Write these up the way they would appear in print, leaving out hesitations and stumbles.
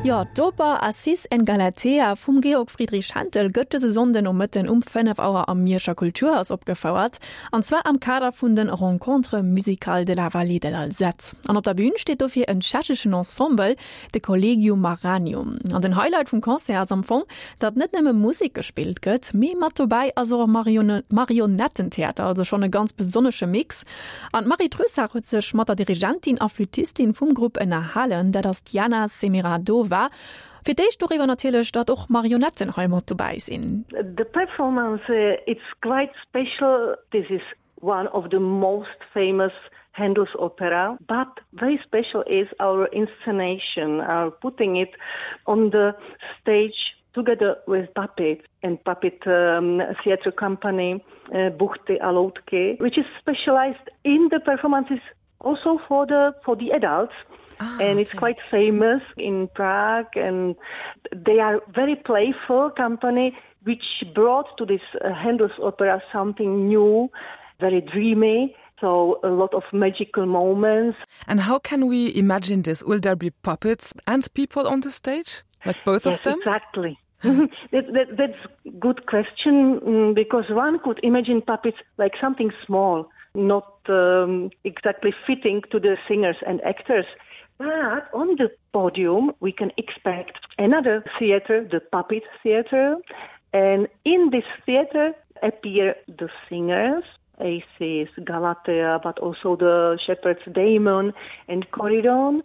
Jo, d'Oper Acis en Galatea vum Georg Friedrich Händel gëtt dëse Sonnden Nomëtten um 5 Auer am Mierscher Kulturhaus opgefouert, an zwar am Kader vun den Rencontres musicales de la Vallée de l'Alzette. An op der Bün steet dofir en tschecheschen Ensemble, de Collegium Maranium. An den Highlight vum Concert ass am Fong, datt net nëmme Musek gespillt gëtt, mee mat dobäi ass och e Marionettentheater, also schonn e ganz besonnesche Mix. An d'Marie Trussart huet sech mat der Dirigentin a Flüttistin vum Grupp ënnerhalen, dat ass d'Jana Semiradova. Fir d'éischt doriwwer natierlech, datt och Marionetten hei mat dobäi sinn. The performance it's quite special, this is one of the most famous Handel's opera, but very special is our inscenation, our putting it on the stage together with puppets and puppet um, theater company uh, Buchty a Loutky, which is specialized in the performances also for the for the adults. Ah, and it's okay. quite famous in Prague and they are very playful company which brought to this uh, Handel's opera something new, very dreamy so a lot of magical moments. And how can we imagine this? Will there be puppets and people on the stage? Like both yes, of them? Exactly. that, that, that's good question mm, because one could imagine puppets like something small, not um, exactly fitting to the singers and actors. But on the podium, we can expect another theater, the puppet theater. And in this theater appear the singers, Aces, Galatea, but also the shepherds Damon and Corydon.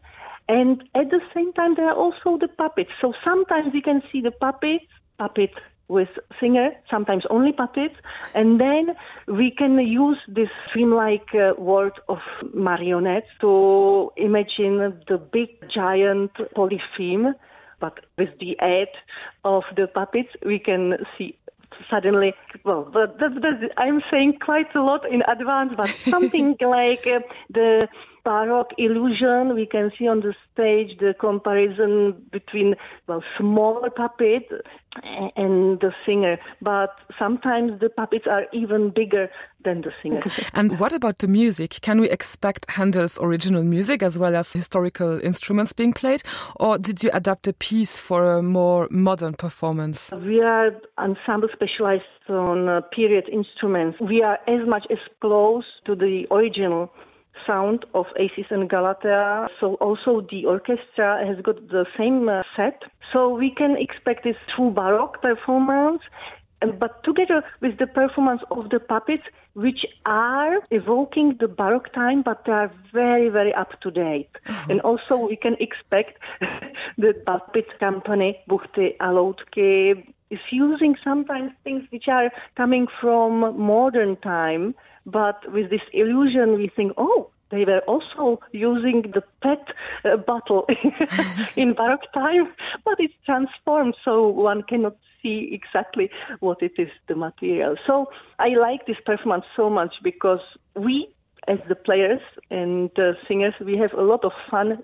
And at the same time, there are also the puppets. So sometimes you can see the puppets, puppet with singer, sometimes only puppets. And then we can use this dreamlike uh, world of marionettes to imagine the big giant polypheme. But with the aid of the puppets, we can see suddenly well but that, that, I'm saying quite a lot in advance, but something like uh, the baroque illusion we can see on the stage the comparison between well smaller puppet and the singer but sometimes the puppets are even bigger than the singer and what about the music can we expect Handel's original music as well as historical instruments being played or did you adapt a piece for a more modern performance we are ensemble specialized on uh, period instruments we are as much as close to the original sound of Aces and Galatea. So also the orchestra has got the same uh, set. So we can expect this true baroque performance, but together with the performance of the puppets, which are evoking the baroque time, but they are very, very up to date. Mm -hmm. And also we can expect the puppet company Buchty Aloutky is using sometimes things which are coming from modern time, but with this illusion we think, oh, they were also using the pet uh, bottle in baroque time, but it's transformed so one cannot see exactly what it is the material. So I like this performance so much because we as the players and the singers, we have a lot of fun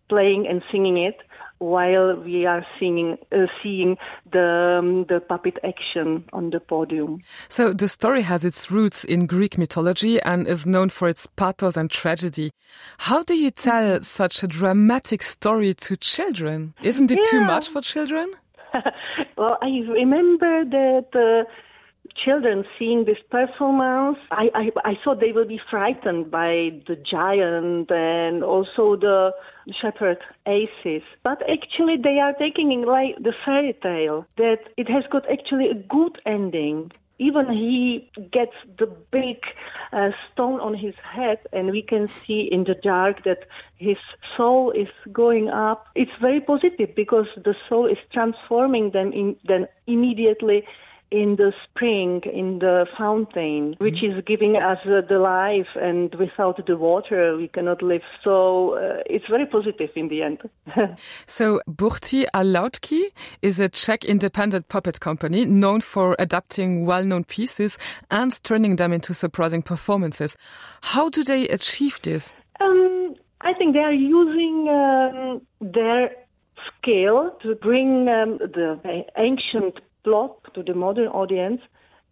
playing and singing it while we are singing uh, seeing the um, the puppet action on the podium. So the story has its roots in Greek mythology and is known for its pathos and tragedy. How do you tell such a dramatic story to children? Isn't it yeah. too much for children? well, I remember that uh, children seeing this performance, I, I, I thought they will be frightened by the giant and also the shepherd Aces. But actually they are taking in like the fairy tale that it has got actually a good ending. Even he gets the big uh, stone on his head and we can see in the dark that his soul is going up. It's very positive because the soul is transforming them in then immediately in the spring in the fountain which mm -hmm. is giving us uh, the life and without the water we cannot live so uh, it's very positive in the end so Burti Alautki is a Czech independent puppet company known for adapting well-known pieces and turning them into surprising performances how do they achieve this um, I think they are using um, their skill to bring um, the ancient plot to the modern audience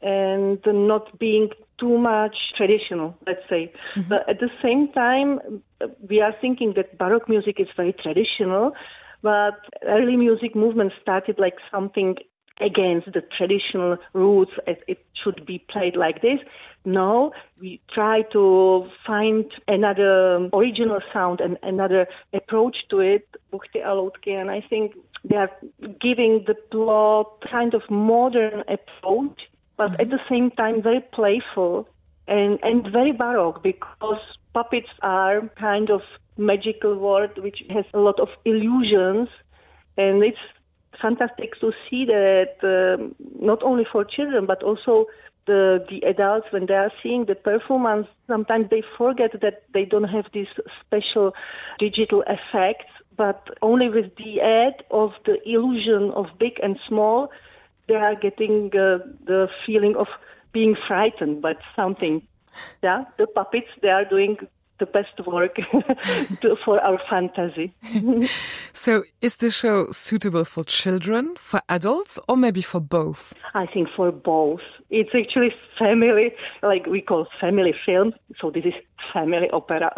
and not being too much traditional let's say mm -hmm. but at the same time we are thinking that baroque music is very traditional. But early music movement started like something against the traditional roots as it should be played like this. No, we try to find another original sound and another approach to it, Buchti Alotki, and I think they are giving the plot kind of modern approach, but mm -hmm. at the same time very playful and, and very baroque because puppets are kind of magical world which has a lot of illusions and it's fantastic to see that um, not only for children but also the the adults when they are seeing the performance sometimes they forget that they don't have these special digital effects but only with the add of the illusion of big and small they are getting uh, the feeling of being frightened by something yeah the puppets they are doing the best work to, for our fantasy. so is the show suitable for children, for adults or maybe for both? I think for both. It's actually family like we call family film, so this is family opera.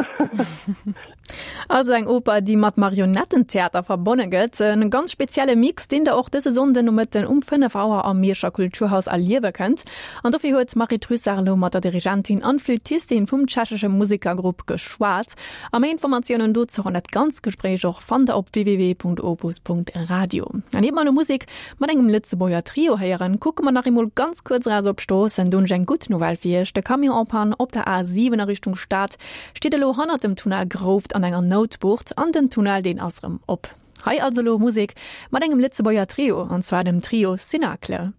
Also eng Oper, déi mat Marionettentheater verbonne gëtt. En ganz spezielle Mix, deen der och dëse Sonnden Nomëtten um 5 Auer am Mierscher Kulturhaus erliewe kënnt. An dofir huet d'Marie Trussart elo mat der Dirigentin an Flüttistin vum tschechesche Musekergrupp geschwat. A méi Informatiounen dozou an dat ganzt Gespréich och fannt der op www.opus.radio. An iert mer elo Musek mat engem Lëtzebuerger Trio héieren, kucke mer nach eemol ganz kuerz eraus op d'Stroossen. Do hunn ech eng gutt Nouvelle fir iech, De Camion en panne op der A7 a Richtung Stad steet elo hannert dem Tunnel Grouft an enger Noutbucht an den Tunnel deen ass erëm op. Hei also elo Musek mat engem Lëtzebuerger Trio, an zwar dem Trio Cénacle.